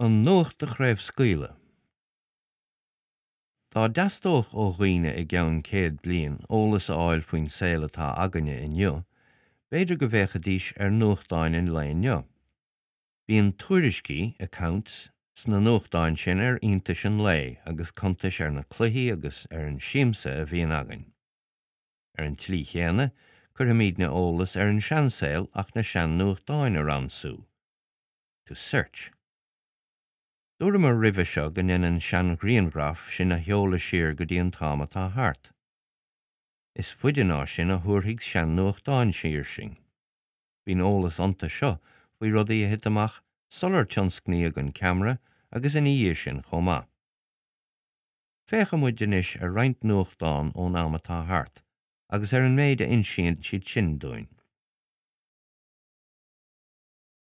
An nuacht a chraobhscaoileadh. Dá dteastódh ó dhaoine i gceann 100 bliain eolas a fháil faoin saol atá againne inniu, b'fhéidir go bhféachfaidís ar nuachtáin an lae inniu. Bíonn tuairiscí, accounts, sna nuachtáin sin ar iontais an lae agus cuntais ar na cluichí agus ar an siamsa a bhíonn againn. Ar an tslí chéanna, cuirfimidne eolas ar an seansaol ach na sean-nuachtáin a ransú. to search. Dúramar roimhe seo go ndéanann seanghrianghraif sinn a sheoladh siar go dtí an t-am atá thart. Is faide ná sin a thabharfaidh sean-nuachtáin siar sinn. Bíonn eolas iontu seo faoi rudaí a thit amach sular tionscnaíodh an ceamara agus ina dhiaidh sin chomh maith. Féachfaidh muid anois ar roinnt nuachtán ón am atá thart agus ar an méid a insíonn siad sin dúinn.